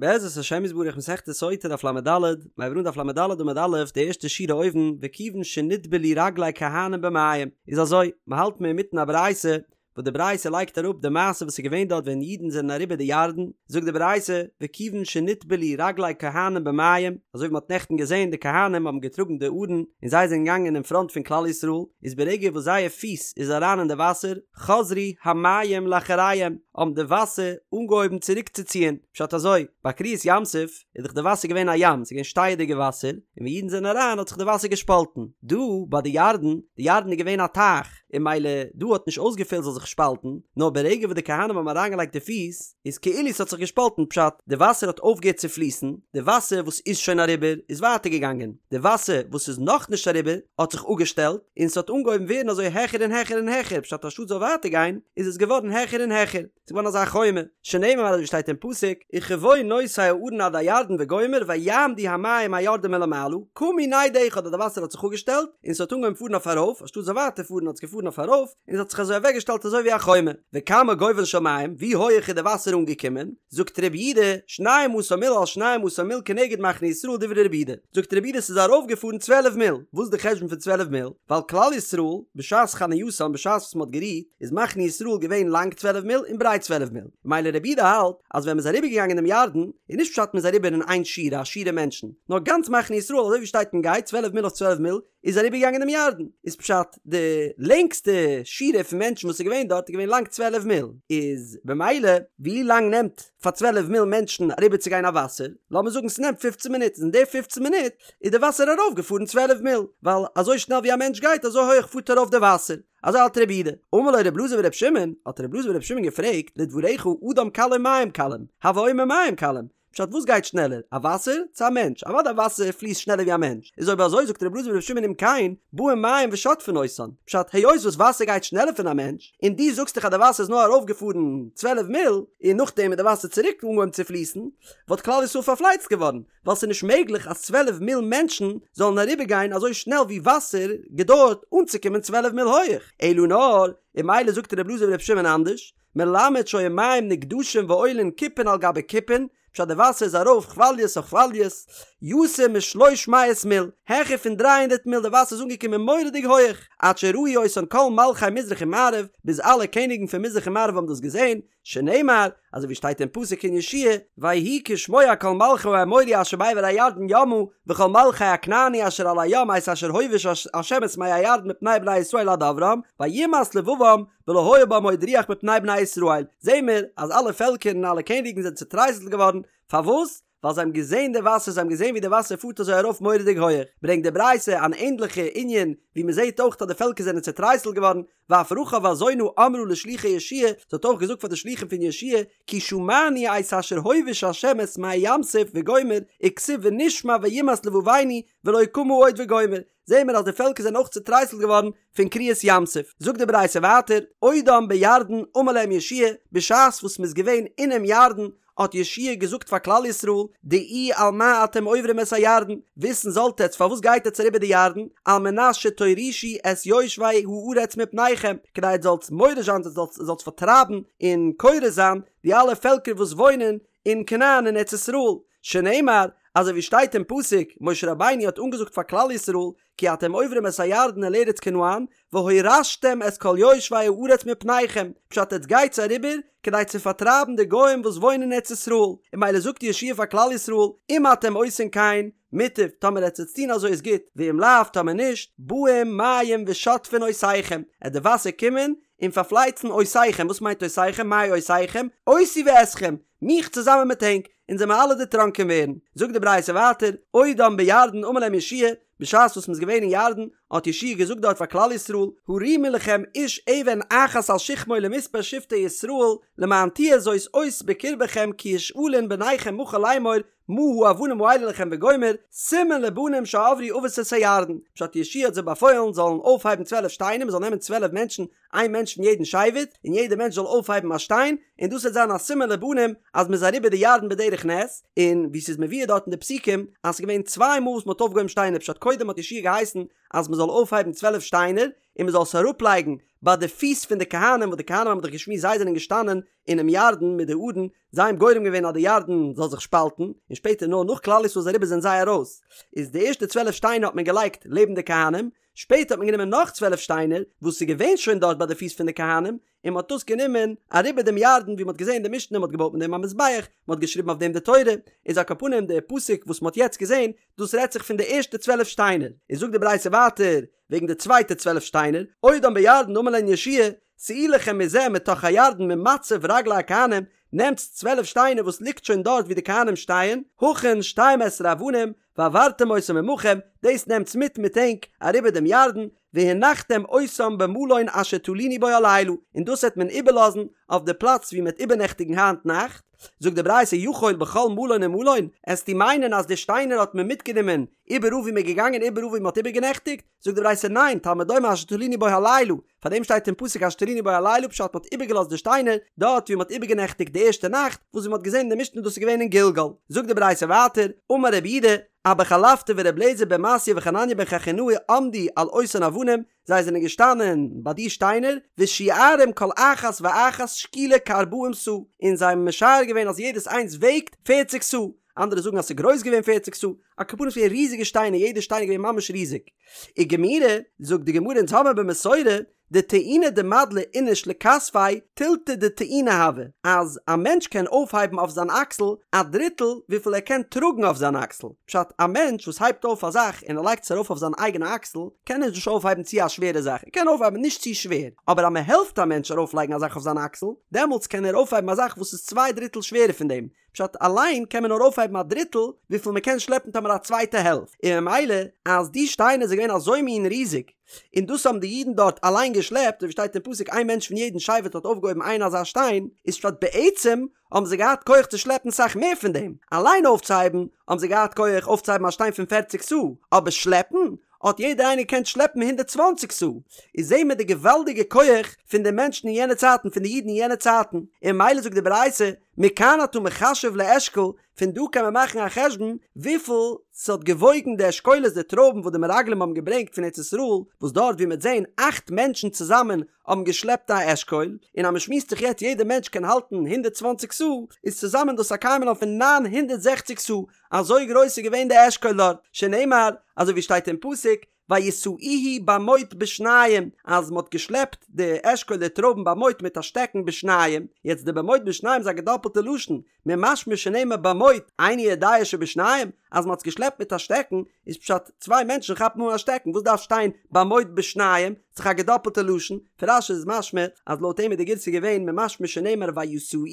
בעזרת השם יתברך מסכת סוטה דף לד, מיר הייבן אן דף לד עמוד א', די ערשטע שורה אויבן, וכיוון שנטבלו רגלי כהנים במים, איז אזוי, מ'האלט מיר אינמיטן א ברייתא, וואס די ברייתא לייגט אראפ די מעשה וואס איז געווען דארט ווען אידן זענען אריבער די ירדן, זאגט די ברייתא, וכיוון שנטבלו רגלי כהנים במים, אזוי ווי מ'האט נעכטן געזען די כהנים האבן געטראגן די ארון און זיי זענען געגאנגען אין פראנט פון כלל ישראל, איז ברגע וואס זייער פיס איז אריין אין די וואסער, חזרו המים לאחריהם, האבן די וואסער אנגעהויבן צוריקצוציען, פשט אזוי, ביי קריעת ים סוף איז דאך די וואסער געווען א ים, ס'איז געווען שטייעדיגע וואסער, און ווען אידן זענען אריין האט זיך די וואסער געשפאלטן, דא ביי די ירדן, די ירדן איז געווען א טייך, און ממילא דא האט נישט אויסגעפעלט זאל זיך שפאלטן, נאר ברגע וואס די כהנים האבן אריינגעלייגט די פיס, איז כאילו ס'האט זיך געשפאלטן, פשט, די וואסער האט אויפגעהערט צו פליסן, די וואסער וואס איז שוין אריבער איז ווייטער געגאנגען, די וואסער וואס איז נאכנישט אריבער האט זיך אפגעשטעלט, און ס'האט אנגעהויבן ווערן אזוי העכער און העכער און העכער, פשט אנשטאט ס'זאל ווייטער גיין, איז עס געווארן העכער און העכער, ס'איז געווארן אזא חומה, שנאמר אזוי ווי שטייט אין פסוק, וכבוא נושאי הארון עד הירדן וגומר ויעמדו המים היורדים מלמעלה, קמו נד אחד אז די וואסער האט זיך אפגעשטעלט, און ס'האט אנגעהויבן פארן אויף ארויף, אנשטאט ס'זאל ווייטער פארן האט עס געפארן אויף ארויף, און ס'האט זיך אזוי אוועקגעשטעלט אזוי ווי א חומה. וכמה גובהן של מים, ווי הויעך איז די וואסער אנגעקומען? זאגט רבי יהודה, שנים עשר מיל על שנים עשר מיל כנגד מחנה ישראל דברי רבי יהודה. זאגט רבי יהודה ס'איז ארויפגעפארן צוועלף מיל. וואס איז די חשבון פון צוועלף מיל? ווייל כלל ישראל, בשעת חנייתם, בשעת וואס מ'האט גערוהט, איז מחנה ישראל געווען לאנג צוועלף מיל און ברייט צוועלף מיל. ממילא רבי יהודה האלט אז ווען מ'איז אריבערגעגאנגען דעם ירדן, איז נישט פשט מ'איז אריבער אין איין שורה, א שורה מענטשן, נאר גאנץ מחנה ישראל אזוי ווי שטייט און גייט צוועלף מיל אויף צוועלף מיל, איז אריבערגעגאנגען דעם ירדן, איז פשט די לענגסטע שורה פון מענטשן וואס איז געווען דארט איז געווען לאנג צוועלף מיל, איז במילא ווי לאנג נעמט פאר צוועלף מיל מענטשן אריבערצוגיין א וואסער, לאמיר זאגן ס'נעמט פופצן מינוט, איז אין די פופצן מינוט איז די וואסער ארויפגעפארן צוועלף מיל, ווייל אזוי שנעל ווי א מענטש גייט אזוי הויעך פארט ארויף די וואסער, אזוי האלט רבי יהודה. אמר לו רבי אלעזר ברבי שמעון, האט רבי אלעזר ברבי שמעון געפרעגט, לדבריך אדם קל או מים קלים, הוי אומר מים קלים, פשט וואס גייט שנעלער א וואסער צו א מענטש? אוודאי א וואסער פליסט שנעלער ווי א מענטש, איז אויב אזוי זאגט רבי אלעזר ברבי שמעון אם כן באים מים ושוטפין אותן, פשט היות וואס וואסער גייט שנעלער פון א מענטש, און דו זאגסט דאך אז די וואסער איז נאר ארויף געפארן צוועלף מיל, און נאכדעם איז די וואסער צוריק אנגעהויבן צו פליסן, וואלט כלל ישראל פארפלייצט געווארן, ווייל ס'איז נישט מעגליך אז צוועלף מיל מענטשן זאלן אריבער גיין אזוי שנעל ווי וואסער געדויערט אנצוקומען צוועלף מיל הויעך, אלא נאר, און ממילא זאגט רבי אלעזר ברבי שמעון אנדערש, מלמד שהיו מים נגדשין ועולין כיפין על גבי כיפין, פשט די וואסער איז ארויף כוואליעס אויף כוואליעס, יותר משלוש מאות מיל, העכער פון דריי הונדערט מיל די וואסער איז אנגעקומען מורא'דיג הויעך, עד שראו אותן כל מלכי מזרח ומערב, ביז אלע קעניגן פון מזרח און מערב האבן דאס געזען, שנאמר, אזוי ווי שטייט אין פסוק אין יהושע ויהי כשמוע כל מלכי האמורי אשר בעבר הירדן ימה, וכל מלכי הכנעני אשר על הים את אשר הוביש ה' את מי הירדן מפני בני ישראל עד עברם, וימס לבבם, ולא היה בם עוד רוח מפני בני ישראל, זעהן מיר אז אלע פעלקער און אלע קעניגן זענען צוטרייסלט געווארן, פארוואס? ווייל זיי האבן געזעהן די וואסער, זיי האבן געזעהן ווי די וואסער פארט אזוי ארויף מורא'דיג הויעך, ברענגט די ברייתא אן ענדליכע ענין, ווי מען זעהט אויך אז די פעלקער זענען צוטרייסלט געווארן, ואף רחב הזונה אמרה לשלוחי יהושע, זי האט אויך געזאגט פאר די שלוחים פון יהושע, כי שמענו את אשר הוביש ה' את מי ים סוף וגומר, וכתיב ונשמע וימס לבבנו ולא קמה עוד וגומר, זעהן מיר אז די פעלקער זענען אויך צוטרייסלט געווארן פון קריעת ים סוף. זאגט די ברייתא ווייטער, עודם בירדן אמר להם יהושע, בשעת וואס מ'איז געווען אינעם ירדן, האט יהושע געזאגט פאר כלל ישראל, דעו על מה אתם עוברים את הירדן, וויסן זאלט עטץ פארוואס גייט עטץ אריבער די ירדן, על מנת שתורישו את יושבי הארץ מפניכם, כדי עטץ זאלטס מוריש זיין, עטץ זאלטס פארטרייבן און כורת זיין די אלע פעלקער וואס וואוינען אין כנען אין ארץ ישראל, שנאמר, אזוי ווי שטייט אין פסוק, משה רבינו האט אנגעזאגט פאר כלל ישראל, כי אתם עוברים את הירדן אל ארץ כנען, והורשתם את כל יושבי הארץ מפניכם, פשט עטס גייטס אריבער כדי צו פארטרייבן די גוים וואס וואוינען אין ארץ ישראל, און ממילא זאגט יהושע פאר כלל ישראל, אם אתם עושים כן, מוטב, טאמער עטס וועטס טון אזוי איז גוט, ואם לאו, טאמער נישט, באים מים ושוטפין אותיכם, עט די וואסער קומען און פארפלייצן אותיכם, וואס מיינט אותיכם, מאי אותיכם, אותי ואתכם, מיך צוזאמען מיט ענק, אונז וועלן אלע דערטראנקען ווערן. זאגט די ברייתא ווייטער, עודם בירדן אמר להם יהושע, בשעת וואס מ'איז געווען אין ירדן, האט יהושע געזאגט דארט פאר כלל ישראל, הרימו לכם איש אבן אחת על שכמו למספר שבטי ישראל, למען תהיה זאת אות בקרבכם כי ישאלון בניכם מחר לאמור, מה האבנים האלה לכם וגומר, סימן לבנים שעברו אבות את הירדן, פשט יהושע האט זיי באפוילן זאלן אויפהייבן צוועלף שטיינער, מ'זאל נעמען צוועלף מענטשן, איין מענטש פון יעדן שבט, און יעדער מענטש זאל אויפהייבן א שטיין, און דאס וועט זיין א סימן לבנים אז מ'איז אריבער די ירדן בדרך. בדרך נס, און ווי ס'איז מבואר דארט אין די פסוקים אז ס'איז געווען צוויי מאל וואס מ'האט אויפגעהויבן שטיינער פשט קודם האט יהושע געהייסן אז מ'זאל אויפהייבן 12 שטיינער און מ'זאל עס אראפלייגן ביי די פיס פון די כהנים וואס די כהנים האבן דאך געשמועסט זיי זענען געשטאנען אינעם ירדן מיט די ארון זיי האבן גורם געווען אז די ירדן זאל זיך שפאלטן, און שפעטער נאר נאך כלל ישראל איז אריבער זענען זיי ארויס, איז די ערשטע 12 שטיינער האט מען געלייגט לעבן די כהנים, שפעטער האט מען גענומען נאך 12 שטיינער וואס איז געווען שוין דארט ביי די פיס פון די כהנים, און מען האט דאס גענומען אריבער דעם ירדן ווי מען האט געזען די משנה מען האט געבויט מיט דעם א מזבח, מען האט געשריבן אויף דעם די תורה, איז על כל פנים די פסוק וואס מען האט יעצט געזען דאס רעדט זיך פון די ערשטע 12 שטיינער, איז זאגט די ברייתא ווייטער וועגן די צווייטע 12 שטיינער, עודם בירדן אמר להן יהושע שאו לכם מזה מתוך הירדן ממצב רגלי הכהנים, נעמטס 12 שטיינער וואס ליגט שוין דארט ווי די כהנים שטייען, הכין שתים עשרה אבנים, והעברתם אותם עמכם, דאס נעמטס מיט מיט ענק אריבער דעם ירדן, והנחתם אותם במלון אשר תלינו בו הלילה, און דאס וועט מען איבערלאזן אויף די פלאץ ווי מען וועט איבערנעכטיגן היינט נאכט. זאגט די ברייתא יכול בכל מלון ומלון, עסטו מיינען אז די שטיינער האט מען מיטגענומען איבעראל ווי מען איז געגאנגען איבעראל ווי מען האט איבערגענעכטיגט? זאגט די ברייתא ניין, תלמוד לומר אשר תלינו בו הלילה, פאר דעם שטייט אין פסוק אשר תלינו בו הלילה פשט מען האט איבערגעלאזט די שטיינער דארט ווי מען האט איבערגענעכטיגט די ערשטע נאכט, וואס ווי מען האט געזען אין די משנה דאס איז געווען אין גלגל. זאגט די ברייתא ווייטער, אמר רבי יהודה, אבא חלפתא ור' אליעזר בן מתיא וחנניה בן חכינאי עמדו על אותן אבנים, זיי זענען געשטאנען ביי די שטיינער, ושיערום כל אחת ואחת שקולה כארבעים סאה, און זיי האבן משער געווען אז יעדעס איינס וועגט פערציג סאה, אנדערע זאגן אז ס'איז גרויס געווען פערציג סאה, על כל פנים ס'איז געווען ריזיגע שטיינער, יעדע שטיין איז געווען ממש ריזיג. וגמירי, זאגט די גמרא אונז האבן במסורה, דטעינה דמדלי איניש לכתפיה תילתא דטעינה הוי, אז א מענטש קען אויפהייבן אויף זיין אקסל א דריטל וויפיל ער קען טראגן אויף זיין אקסל, פשט, א מענטש וואס הייבט אויף א זאך און ער לייגט עס ארויף אויף זיין אייגענע אקסל, קען ער נישט אויפהייבן צו א שווערע זאך, ער קען אויפהייבן נישט צו שווער, אבער אז מען העלפט א מענטש ארויפלייגן א זאך אויף זיין אקסל, דעמאלטס קען ער אויפהייבן א זאך וואס איז צוויי דריטל שווערער פון דעם, פשט, אליין קען מען נאר אויפהייבן א דריטל וויפיל מען קען שלעפן טאמער א צווייטע העלפט, און ממילא אז די שטיינער זענען געווען אזוי מין ריזיג, און דאס האבן די אידן דארט אליין געשלעפט, אזוי ווי שטייט אין פסוק איין מענטש פון יעדן שבט האט אויפגעהויבן איין אזא שטיין, איז פשט בעצם האבן זיי געהאט כח צו שלעפן סאך מער פון דעם, אליין אויפצוהייבן האבן זיי געהאט כח אויפצוהייבן א שטיין פון פערציג סאה, אבער שלעפן האט יעדער איינער געקענט שלעפן 120 סאה, איז זעהן מיר די געוואלדיגע כח פון די מענטשן אין יענע צייטן פון די אידן אין יענע צייטן, און ממילא זאגט די ברייתא, מכאן אתה מחשב לאשכול, פון דא קען מען מאכן א חשבון וויפיל ס'האט געוואויגן די אשכולות די טרויבן וואס די מרגלים האבן געברענגט פון ארץ ישראל, וואס דארט ווי מ'וועט זעהן אכט מענטשן צוזאמען האבן געשלעפט א אשכול, און אז מ'שמועסט זיך יעצט יעדע מענטש קען האלטן 120 סאה, איז צוזאמען דאס א קיימא לן פון 960 סאה, אזוי גרויס איז געווען די אשכול דארט, שנאמר, אזוי ווי שטייט אין פסוק, וישאוהו במוט בשניים, אז מ'האט געשלעפט די אשכול די טרויבן במוט מיט א שטעקן בשניים, יעצט די במוט בשניים איז א געדאפלטע לשון, ממשמע שנאמר במוט, איני יודע שבשניים, אז מ'האט עס געשלעפט מיט א שטעקן, איז פשט צוויי מענטשן כאפן אן א שטעקן, וואס דארף שטיין במוט בשניים, ס'איז דאך א געדאפלטע לשון, פון רש"י איז משמע אז לויט אים איז די גירסא געווען ממשמע שנאמר וישאוהו,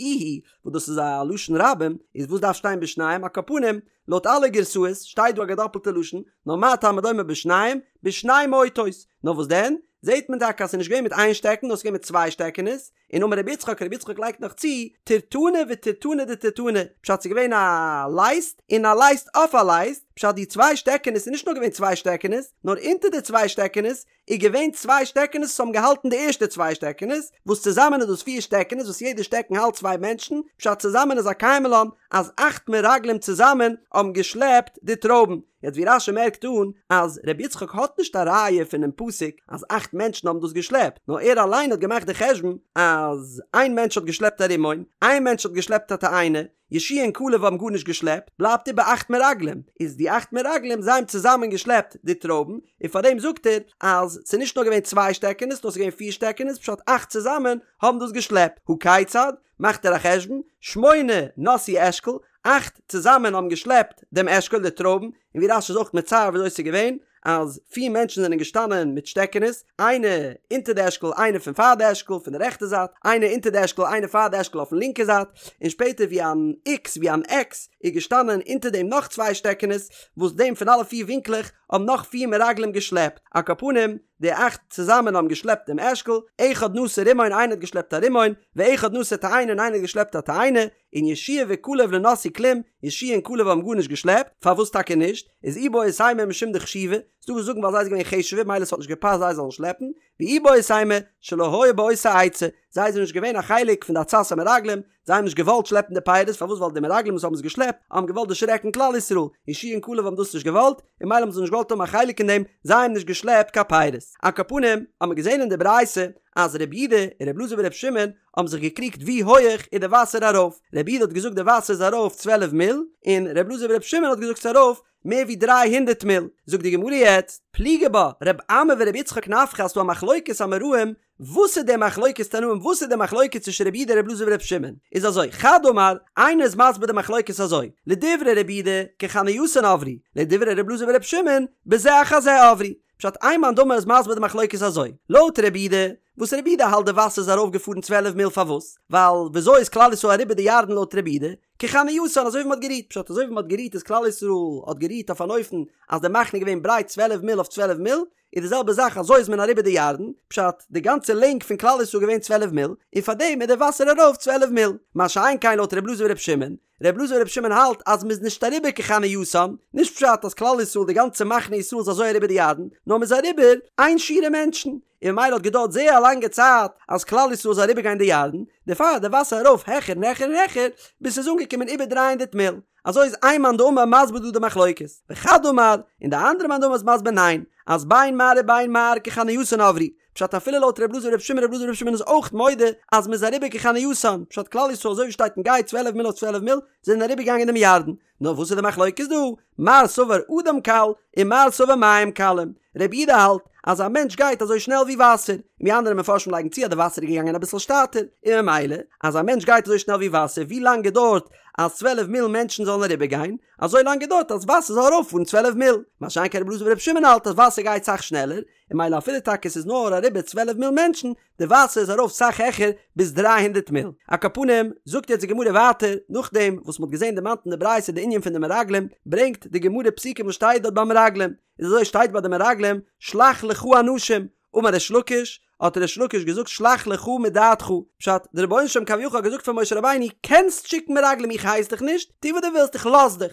וואס דאס איז א לשון רבים, איז וואס דארף שטיין בשניים, על כל פנים, לויט אלע גירסאות שטייט דא א געדאפלטע לשון, נאר מה תלמוד לומר בשניים, בשני מוטות, נאר וואס דען, זעט מען טאקע אז ס'איז נישט געווען מיט איין שטעקן נאר ס'איז געווען מיט צוויי שטעקענעס, און אמר רבי יצחק, רבי יצחק לייגט נאך צו, טירטנא וטירטנא דטירטנא, פשט ס'איז געווען א לייסט און א לייסט אויף א לייסט, פשט די צוויי שטעקענעס איז נישט נאר געווען צוויי שטעקענעס, נאר אונטער די צוויי שטעקענעס איז געווען צוויי שטעקענעס וואס האבן געהאלטן די ערשטע צוויי שטעקענעס, וואס צוזאמען איז דאס פיר שטעקענעס וואס יעדע שטעקן האלט צוויי מענטשן, פשט צוזאמען איז א קיימא לן אז אכט מרגלים צוזאמען האבן געשלעפט די טרויבן. יעצט ווי רש"י מערקט אן אז ר' יצחק האט נישט א ראיה פונעם פסוק אז אכט מענטשן האבן דאס געשלעפט, נאר ער אליין האט געמאכט די חשבון אז איין מענטש האט געשלעפט א רימון, איין מענטש האט געשלעפט א תאנה, יהושע און כלב האבן גארנישט געשלעפט, בלייבט איבער אכט מרגלים, איז די אכט מרגלים זיי האבן צוזאמען געשלעפט די טרויבן, און פאר דעם זאגט ער אז ס'איז נישט נאר געווען צוויי שטעקענעס נאר ס'איז געווען פיר שטעקענעס פשט אכט צוזאמען האבן דאס געשלעפט, הא כיצד? מאכט ער א חשבון, שמונה נשאו אשכול, אכט צוזאמען האבן געשלעפט דעם אשכול די טרויבן, און ווי רש"י איז אויך מצייר וויאזוי ס'איז געווען, אז פיר מענטשן זענען געשטאנען מיט שטעקענעס, איינער אונטער די אשכול איינער פון פאר די אשכול פון די רעכטע זייט, איינער אונטער די אשכול איינער פאר די אשכול אויפן לינקע זייט, און שפעטער ווי אן איקס ווי אן עקס איז געשטאנען אונטער דעם נאך צוויי שטעקענעס, וואס דעם פון אלע פיר ווינקלעך האבן נאך פיר מרגלים געשלעפט, על כל פנים די אכט צוזאמען האבן געשלעפט דעם אשכול, אחד נשא רימון איינער האט געשלעפט א רימון, ואחד נשא תאנה און איינער האט געשלעפט א תאנה, און יהושע וכלב לא נשאו כלום, יהושע און כלב האבן גארנישט געשלעפט, פארוואס טאקע נישט? איז איבעית אימא משום דחשיבי, ס'דא וואס זאגן ווייל זיי זענען געווען חשוב'ער מילא ס'האט נישט געפאסט זיי זאלן שלעפן, ואיבעית אימא, שלא היו באותה עצה, זיי זענען נישט געווען א חלק פון די עצת המרגלים, זיי האבן נישט געוואלט שלעפן די פירות, פארוואס ווייל די מרגלים וואס האבן עס געשלעפט האבן געוואלט דערשרעקן כלל ישראל, יהושע און כלב האבן דאס נישט געוואלט, און מילא האבן זיי נישט געוואלט האבן א חלק אין דעם, זיי האבן נישט געשלעפט קיין פירות. על כל פנים, האט מען געזען אין די ברייתא אז רבי יהודה און רבי אלעזר ברבי שמעון האבן זיך געקריגט ווי הויעך איז די וואסער ארויף, רבי יהודה האט געזאגט די וואסער איז ארויף צוועלף מיל, און רבי אלעזר ברבי שמעון האט געזאגט ס'איז ארויף מער ווי דריי הונדערט מיל. זאגט די גמרא יעצט, פליגי בה רב אמי ורבי יצחק נפחא אז ס'דא א מחלוקת אמוראים, וואס איז די מחלוקת תנאים וואס איז די מחלוקת צווישן רבי יהודה און רבי אלעזר ברבי שמעון? איז אזוי, חד אמר, איינער איז מסביר די מחלוקת אזוי, לדברי רבי יהודה, כחנייתן עברו, לדברי רבי אלעזר ברבי שמעון, בזה אחר זה עברו. פשט איין מאן דאמר איז מסביר די מחלוקת אזוי, לויט רבי יהודה, וואס רבי יהודה האלט די וואסער איז ארויף געפארן צוועלף מיל פארוואס? ווייל וויאזוי איז כלל ישראל אריבער די ירדן לויט רבי יהודה? כחנייתן אזוי ווי מ'האט גערוהט, פשט אזוי ווי מ'האט גערוהט איז כלל ישראל האט גערוהט אויף אן אופן אז די מחנה איז געווען ברייט צוועלף מיל אויף צוועלף מיל, איז די זעלבע זאך אזוי איז מען אריבער די ירדן, פשט די גאנצע לענג פון כלל ישראל געווען צוועלף מיל, און פארדעם איז די וואסער ארויף צוועלף מיל, מה שאין כן לויט ר' אלעזר בר' שמעון, ר' אלעזר בר' שמעון האלט אז מ'איז נישט אריבער כחנייתן, נישט פשט אז כלל ישראל די גאנצע מחנה ישראל איז אזוי אריבער די ירדן, נאר מ'איז אריבער איין שורה מענטשן, און ממילא האט געדויערט זייער א לאנגע צייט אז כלל ישראל זאל אריבער גיין די ירדן, דערפאר איז די וואסער ארויף העכער און העכער און העכער, ביז ס'איז אנגעקומען איבער דריי הונדערט מיל. אזוי איז איין מאן דאמר מסביר דא די מחלוקת, וחד אמר, און די אנדערע מאן דאמר איז מסביר ניין, אז בין מר ובין מר כחנייתן עברו, פשט אפילו לויט ר' אלעזר בר' שמעון ר' אלעזר בר' שמעון איז אויך מודה אז מ'איז אריבער כחנייתן, פשט כלל ישראל אזוי ווי שטייט און גייט צוועלף מיל אויף צוועלף מיל זענען אריבער געגאנגען דעם ירדן, נאר וואס איז די מחלוקת דא? מר סבר אדם קל און מר סבר מים קלים, רבי יהודה האלט אז א מענטש גייט אזוי שנעל ווי וואסער, און ווי אנדערע מפרשים לייגן צו אז די וואסער איז געגאנגען אביסל שטאטער, און ממילא אז א מענטש גייט אזוי שנעל ווי וואסער ווי לאנג געדויערט אז צוועלף מיל מענטשן זאלן אריבער גיין, אזוי לאנג געדויערט אז וואסער זאל ארויפפארן צוועלף מיל, מה שאין כן רבי אלעזר ברבי שמעון האלט אז וואסער גייט סאך שנעלער, און ממילא אפילו טאקע ס'איז נאר אריבער צוועלף מיל מענטשן, די וואסער איז ארויף סאך העכער ביז דריי הונדערט מיל. על כל פנים, זאגט יעצט די גמרא ווייטער, נאכדעם וואס מ'האט געזען דערמאנט אין די ברייתא די ענין פון די מרגלים, ברענגט די גמרא פסוקים וואס שטייט דארט ביי מרגלים, איז אזוי שטייט ביי די מרגלים, שלח לך אנשים, אמר ריש לקיש, האט ריש לקיש געזאגט שלח לך מדעתך, פשט, די רבונו של עולם כביכול האט געזאגט פאר משה רבינו, קענסט שיקן מרגלים איך הייס דיך נישט, טו וואס דו ווילסט איך לאז דיך.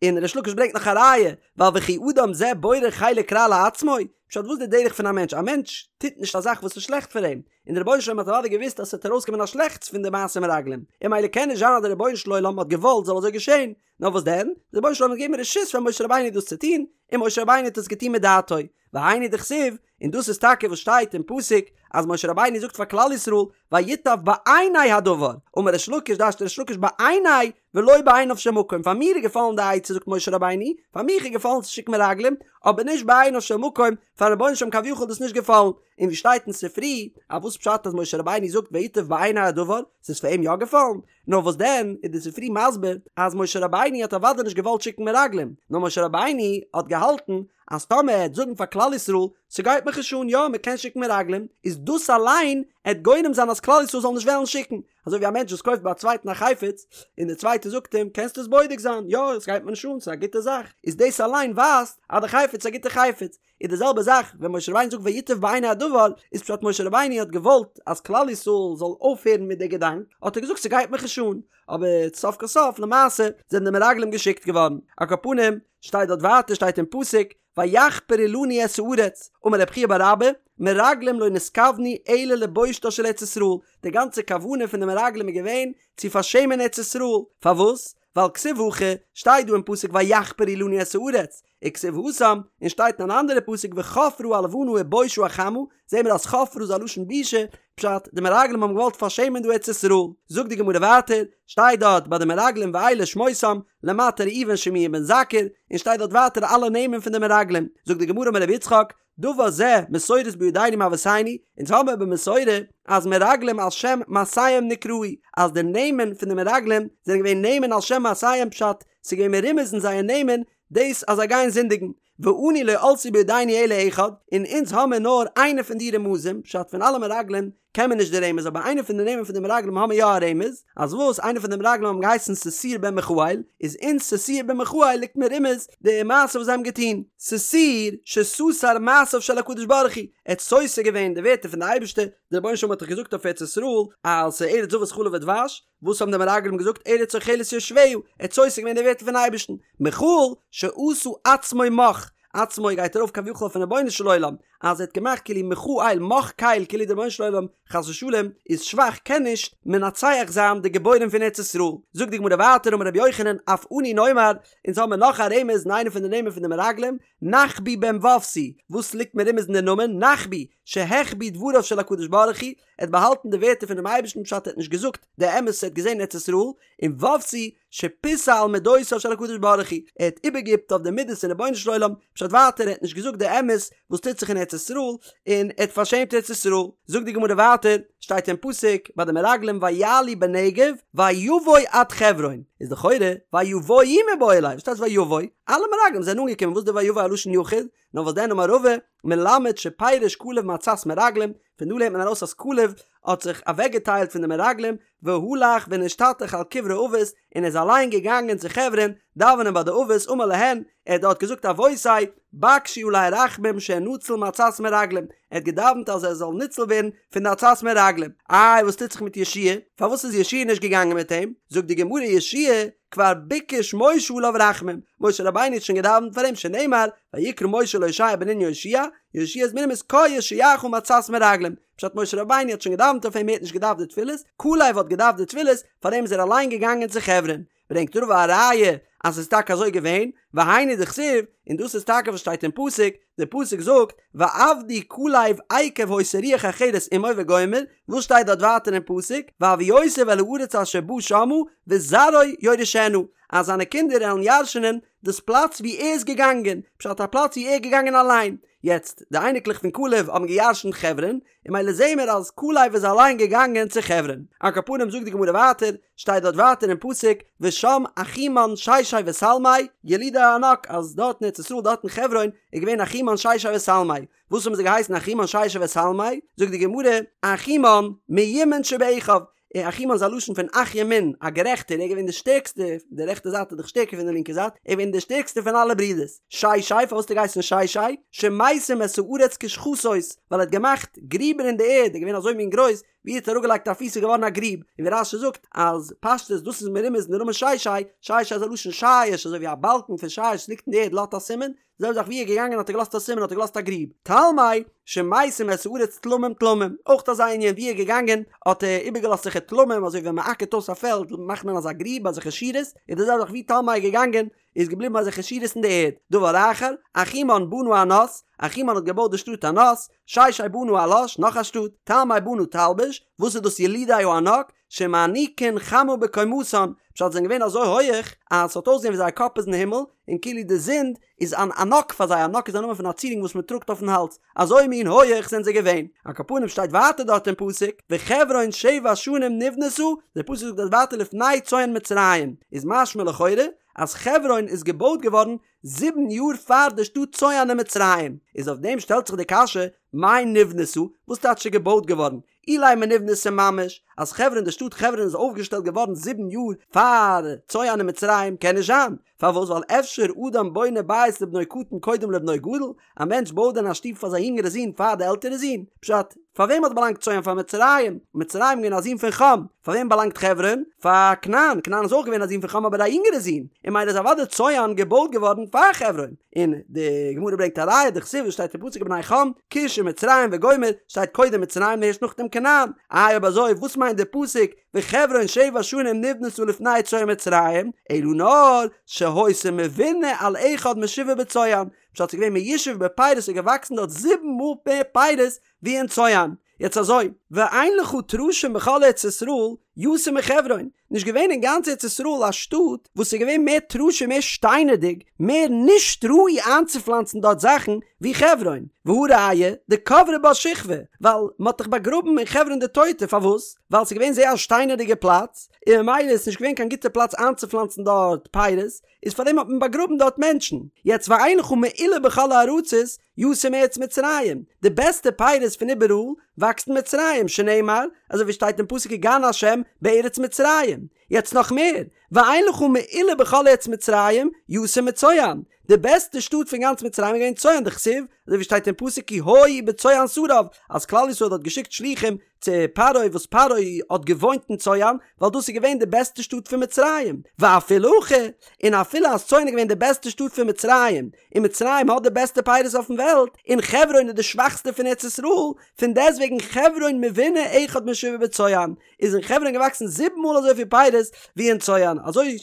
און ריש לקיש ברענגט נאך א ראיה, ווייל וכי אדם זה בורר חלק רע לעצמו, פשט וואס איז די דרך פון א מענטש, א מענטש טוט נישט א זאך וואס איז שלעכט פאר אים, און די רבונו של עולם האט אוודאי געוואוסט אז ס'וועט ארויסקומען א שלעכטס פון די מעשה מרגלים, און ממילא קען נישט זיין אז די רבונו של עולם האט געוואלט זאל אזוי געשען, נאר וואס דען, די רבונו של עולם האט געגעבן רשות פאר משה רבינו דאס צו טון, און משה רבינו האט עס געטון מדעתו, והיינו דכתיב, און דאס איז טאקע וואס שטייט אין פסוק, אז משה רבינו זאגט פאר כלל ישראל, וייטב בעיני הדבר, אמר ריש לקיש דרש'ט ריש לקיש בעיני ולא בעיניו של מקום, פאר מיר איז געפאלן די עצה זאגט משה רבינו, פאר מיך איז געפאלן צו שיקן מרגלים, אבער נישט בעיניו של מקום, פארן רבונו של עולם כביכול איז דאס נישט געפאלן, און ווי שטייט אין ספרי, אז וואס פשט אז משה רבינו זאגט וייטב בעיני הדבר, ס'איז פאר אים יא געפאלן? נאר וואס דען איז די ספרי מסביר אז משה רבינו האט אוודאי נישט געוואלט שיקן מרגלים, נאר משה רבינו האט געהאלטן אז טאמער ער העט זאגן פאר כלל ישראל ס'גייט מיך נישט אן יא מ'קען שיקן מרגלים, איז דאס אליין עט גורם זיין אז כלל ישראל זאל נישט וועלן שיקן, אזוי ווי א מענטש וואס קויפט ביי א צווייטן א חפץ און דער צווייטער זאגט אים קענסט עס בודק זיין יא עס גייט מיר נישט אן ס'איז א גוטע זאך, איז דאס אליין ווייזט אז די חפץ איז א גוטע חפץ, איז די זעלבע זאך ווען משה רבינו זאגט וייטב בעיני הדבר, איז פשט משה רבינו האט געוואלט אז כלל ישראל זאל אויפהערן מיט די געדאנק, האט ער געזאגט ס'גייט מיך נישט אן, אבער סוף כל סוף למעשה זענען די מרגלים געשיקט געווארן, על כל פנים שטייט דארט ווייטער שטייט אין פסוק ויחפרו לנו את הארץ, אמר רב חייא בר אבא, מרגלים לא נתכוונו אלא לבושתה של ארץ ישראל, די גאנצע כוונה פון די מרגלים איז געווען צו פארשעמען ארץ ישראל, פארוואס? ווייל כתיב הכא, שטייט דא אין פסוק ויחפרו לנו את הארץ, וכתיב התם, און שטייט אין אן אנדערע פסוק וחפרה הלבנה ובושה החמה, זעהן מיר אז חפרה איז א לשון בושה, פשט, די מרגלים האבן געוואלט פארשעמען דא ארץ ישראל. זאגט די גמרא ווייטער, שטייט דארט ביי די מרגלים ואלה שמותם, למטה ראובן שמוע בן זכור, און שטייט דארט ווייטער אלע נעמען פון די מרגלים. זאגט די גמרא אמר רבי יצחק, דבר זה מסורת בידינו מאבותינו, אונז האבן במסורה אז מרגלים על שם מעשיהם נקראו, אז די נעמען פון די מרגלים זענען געווען נעמען על שם מעשיהם פשט, ס'איז געווען מרומז אין זייער נעמען דאס אז זיי גייען זינדיגן, ואנו לא עלתה בידינו אלא אחד, און אונז האמיר נאר איינע פון די רמזים, פשט פון אלע מרגלים קען מען נישט די רמז אבער איינע פון די נעמען פון די מרגלים האמיר יא א רמז, אז וואס איינע פון די מרגלים האבן געהייסן ששור בן מיכאל, איז אין ששור בן מיכאל ליגט מרומז די מעשה וואס זיי האבן געטון, ששור שסתר מעשיו של הקדוש ברוך הוא, ער האט סותר געווען די ווערטער פון די אייבערשטער, די רבונו של עולם האט דאך געזאגט אויף ארץ ישראל אז ס'איז ארץ זבת חלב ודבש, וואס האבן די מרגלים געזאגט ארץ אוכלת יושביה, ער האט סותר געווען די ווערטער פון אייבערשטן, מיכאל שעשה עצמו מך. עצמו גייט ארויף כביכול אויפן רבונו של עולם, אז ער האט געמאכט כאילו מחה אל מך קל כאילו דער רבונו של עולם חס ושלום איז שוואך קען נישט מנצח זיין די גיבורים פון ארץ ישראל. זאגט די גמרא ווייטער אמר רבי יוחנן אף אנו נאמר, אונז האבן מיר נאך א רמז אין איינע פון די נעמען פון די מרגלים, נחבי בן ופסי, וואס ליגט מרומז אין די נאמען נחבי, שהחביא דבריו של הקדוש ברוך הוא, ער האט באהאלטן די ווערטער פונעם אייבערשטן פשט ער האט נישט געזאגט די אמת וואס ער האט געזען אין ארץ ישראל, און ופסי, שפיסע על מדותיו של הקדוש ברוך הוא, ער האט איבערגעהיפט אויף די מידות פון רבונו של עולם, פשט ווייטער ער האט נישט געזאגט די אמת וואס טוט זיך אין ארץ ישראל, און ער האט פארשעמט ארץ ישראל. זאגט די גמרא ווייטער, שטייט אין פסוק ביי די מרגלים ויעלו בנגב ויבוא עד חברון, איז לכאורה ויבואו מיבעי ליה, וואס טייטש ויבוא? אלע מרגלים זענען אנגעקומען, וואס איז די ויבוא א לשון יחיד? נאר וואס דען אמר רבא, מלמד שפירש כלב מעצת מרגלים, פון דא לערנט מען ארויס אז כלב האט זיך אוועקגעטיילט פון די מרגלים, והלך ונשתטח על קברי אבות, און איז אליין געגאנגען צו חברון דאווענען ביי די אבות, אמר להן, ער האט דארט געזאגט אבותי, בקשו עלי רחמים שאנצל מעצת מרגלים, ער האט געדאווענט אז ער זאל ניצל ווערן פון די עצת מרגלים. איי וואס טוט זיך מיט יהושע פארוואס איז יהושע נישט געגאנגען מיט אים? זאגט די גמרא יהושע כבר ביקש משה עליו רחמים, משה רבינו האט שוין געדאווענט פאר אים שנאמר ויקרא משה להושע בן נון יהושע, יהושע איז מרומז קה יושיעך מעצת מרגלים, פשט משה רבינו האט שוין געדאווענט אויף אים ער האט נישט געדארפט די תפילות, כלב האט געדארפט די תפילות, פאר דעם איז ער אליין געגאנגען צו חברון. ברענגט רבא א ראיה אז ס'איז טאקע אזוי געווען, והיינו דכתיב, און דאס איז טאקע וואס שטייט אין פסוק, דער פסוק זאגט, ועבדו כלב עקב היתה רוח אחרת עמו וגומר, וואס שטייט דארט ווייטער אין פסוק, והביאותיו אל הארץ אשר בא שמה, וזרעו יורשנה, אז זיינע קינדער עלן ירש'נען דאס פלאץ וואו ער איז געגאנגען, פשט א פלאץ וואו ער איז געגאנגען אליין. יעצט, די אייניקלעך פון כלב האבן געירש'נט חברון, און ממילא זעהן מיר אז כלב איז אליין געגאנגען צו חברון. על כל פנים זאגט די גמרא ווייטער, שטייט דארט ווייטער אין פסוק, ושם אחימן ששי ותלמי, ילידי הענק, אז דארט אין ארץ ישראל דארט אין חברון איז געווען אחימן ששי ותלמי. וואס האבן זיי געהייסן אחימן ששי ותלמי? זאגט די גמרא, אחימן מימין שבאחיו, און אחימן איז א לשון פון אח ימין, א גערעכטער, ער איז געווען דער שטערקסטער, די רעכטע זייט איז דאך שטערקער פון די לינקע זייט, ער איז געווען דער שטערקסטער פון אלע ברידערס. ששי, פארוואס האט ער געהייסן ששי? שמשים את הארץ כשחתות, ווייל ער האט געמאכט גריבער אין די ערד, ער איז געווען אזוי מין גרויס, ווי ער האט אראפגעלייגט א פיס איז געווארן א גריב, און ווי רש"י זאגט אז פשטות דאס איז מרומז אין די נאמען ששי, ששי איז א לשון שיש, אזוי ווי א באלקן פון שיש וואס ליגט אין די ערד לאזט א סימן, די זעלבע זאך ווי ער איז געגאנגען האט ער געלאזט א סימן האט ער געלאזט א גריב. תלמי, שמשים את הארץ תלמים תלמים, אויך אזא ענין ווי ער איז געגאנגען האט ער איבערגעלאזט אזעלכע תלמים אזוי ווי ווען מען אקערט אויס א פעלד מאכט מען אזא גריב אזעלכע שורות, איז די זעלבע זאך ווי תלמי איז געגאנגען איז געבליבן אזעלכע שורות אין די ערד. דבר אחר, אחימן בנה ענות, אחימן האט געבויט די שטאט ענות, ששי בנה עלש, נאך א שטאט, תלמי בנה תלבוש, וואס איז דאס ילידי הענק? שמעניקין חמה בקומתן, פשט זיי זענען געווען אזוי הויעך אז ס'האט אויסגעזען ווי זייער קאפ איז אין הימל, און כאילו די זון איז אן ענק פאר זיי, ענק איז א נאמען פון א צירונג וואס מען טראגט אויפן האלז, אזוי מין הויעך זענען זיי געווען. על כל פנים שטייט ווייטער דארט אין פסוק, וחברון שבע שנים נבנתה, דער פסוק זאגט דארט ווייטער לפני צוען מצרים, איז משמע לכאורה אז חברון איז געבויט געווארן זיבן יאר פאר די שטאט צוען אין מצרים, איז אויף דעם שטעלט זיך די קשיא, מאי נבנתה, וואס טייטש איז געבויט געווארן? אילימא נבנתה ממש, אז חברון די שטאט חברון איז אויפגעשטעלט געווארן זיבן יאר פאר צוען אין מצרים קען נישט זיין, פארוואס ווייל אפשר אדם בונה בית לבנו קטן קודם לבנו גדול, א מענטש בויט דען א שטוב פאר זיין יונגערע זון פאר די עלטערע זון? פשט, פאר וועם האט באלאנגט צוען פאר מצרים, מצרים איז געווען א זון פון חם, פאר וועם באלאנגט חברון? פאר כנען, כנען איז אויך געווען א זון פון חם אבער א יונגערע זון, און ממילא איז אוודאי צוען געבויט געווארן פאר חברון. און די גמרא ברענגט א ראיה דכתיב וואס שטייט אין פסוק ובני חם כוש ומצרים וגומר שטייט קודם מצרים און ערשט נאכדעם כנען, איי אויב אזוי וואס מיינט די פסוק וחברון שבע שנים נבנתה לפני צוען מצרים, אלא נאר שהיתה מבונה על אחד משבעה בצוען, פשט ס'איז געווען מיושב בפירות ס'איז געוואקסן דארט זיבן מאל מער פירות ווי אין צוען. יעצט אזוי, ואין לך טרשים בכל ארץ ישראל יותר מחברון, נישט געווען אין גאנץ ארץ ישראל א שטאט וואס איז געווען מער טרשים מער שטיינערדיג, מער נישט ראוי איינצופלאנצן דארט זאכן ווי חברון, והא ראיה, דקברי בה שכבי, ווייל מען האט דאך באגראבן אין חברון די טויטע, פארוואס? ווייל ס'איז געווען זייער א שטיינערדיגע פלאץ, און ממילא איז נישט געווען קיין גוטע פלאץ איינצופלאנצן דארט פירות, איז פארדעם האט מען באגראבן דארט מענטשן, יעצט ואין לך מעולה בכל הארצות יותר מארץ מצרים, די בעסטע פירות פון איבעראל וואקסט אין מצרים, שנאמר, אזוי ווי שטייט אין פסוק כגן ה' בארץ מצרים. יעצט נאך מער, ואין לך מעולה בכל ארץ מצרים יותר מצוען, די בעסטע שטאט פון גאנץ מצרים איז געווען צוען דכתיב, אזוי ווי שטייט אין פסוק כי היו בצוען שריו, אז כלל ישראל האט געשיקט שלוחים צו פרעה וואס פרעה האט געוואוינט אין צוען, ווייל דאס איז געווען די בעסטע שטאט פון מצרים, ואפילו הכי, און אפילו אז צוען איז געווען די בעסטע שטאט פון מצרים, און מצרים האט די בעסטע פירות אויפן וועלט, און חברון איז די שוואכסטע פון ארץ ישראל, פון דעסטוועגן חברון מבונה אחד משבעה בצוען, איז אין חברון געוואקסן זיבן מאל אזויפיל פירות ווי אין צוען, אזוי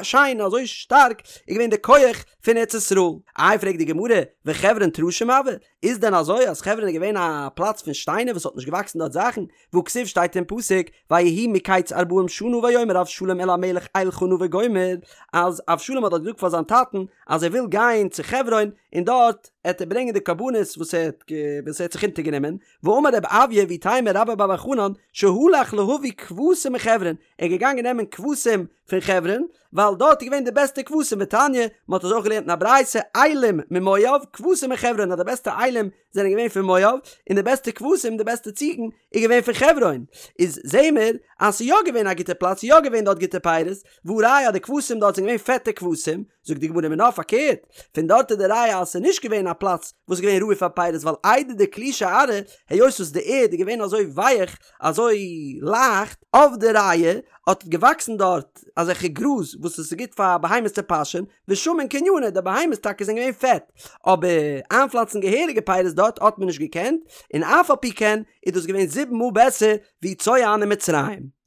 שיין און אזוי שטארק איז געווען די כח פון ארץ ישראל. איי פרעגט די גמרא, וחברון טרשים הואי, איז דען אזוי אז חברון איז געווען א פלאץ פון שטיינער וואס האט נישט געוואקסן דארט זאכן, והכתיב שטייט אין פסוק, ויהי מקץ ארבעים שנה ויאמר אבשלום אל המלך אלכה נא וגומר, אז אבשלום האט דארט געזאגט פאר זיין טאטן אז ער וויל גיין צו חברון און דארט עט ער ברענגען די קרבנות וואס ער האט וואס ער האט זיך אונטערגענומען, ואמר רב אויא ואיתימא רבה בר בר חנן שהלך להביא כבשים מחברון, ער איז געגאנגען נעמען כבשים פון חברון, ווייל דארט איז געווען די בעסטע כבשים ותניא, מען האט עס אויך געלערנט אין א ברייתא, אילים ממואב, כבשים מחברון, אז די בעסטע אילים זענען געווען פון מואב, און די בעסטע כבשים, די בעסטע ציגן, איז געווען פון חברון. איז זעהן מיר אז ס'איז יא געווען א גוטע פלאץ, ס'איז יא געווען דארט גוטע פירות, והא ראיה אז די כבשים דארט זענען געווען פעטע כבשים, זאגט די גמרא מינה פארקערט, פון דארט איז די ראיה אז ס'איז נישט געווען א פלאץ וואס איז געווען ראוי פאר פירות ווייל איידי דקלישא ארעא, היות וואס די ערד איז געווען אזוי ווייך, אזוי לייכט, עבדי רעי, האט געוואקסן דארט אזעלכע גראז וואס עס איז גוט פאר בהמות צו פאשען, ושמין קניינא, די בהמות טאקע זענען געווען פעט, אבער איינפלאנצן געהעריגע פירות דארט האט מען נישט געקענט, און אף על פי כן איז דאס געווען זיבן מאל בעסער ווי צוען אין מצרים.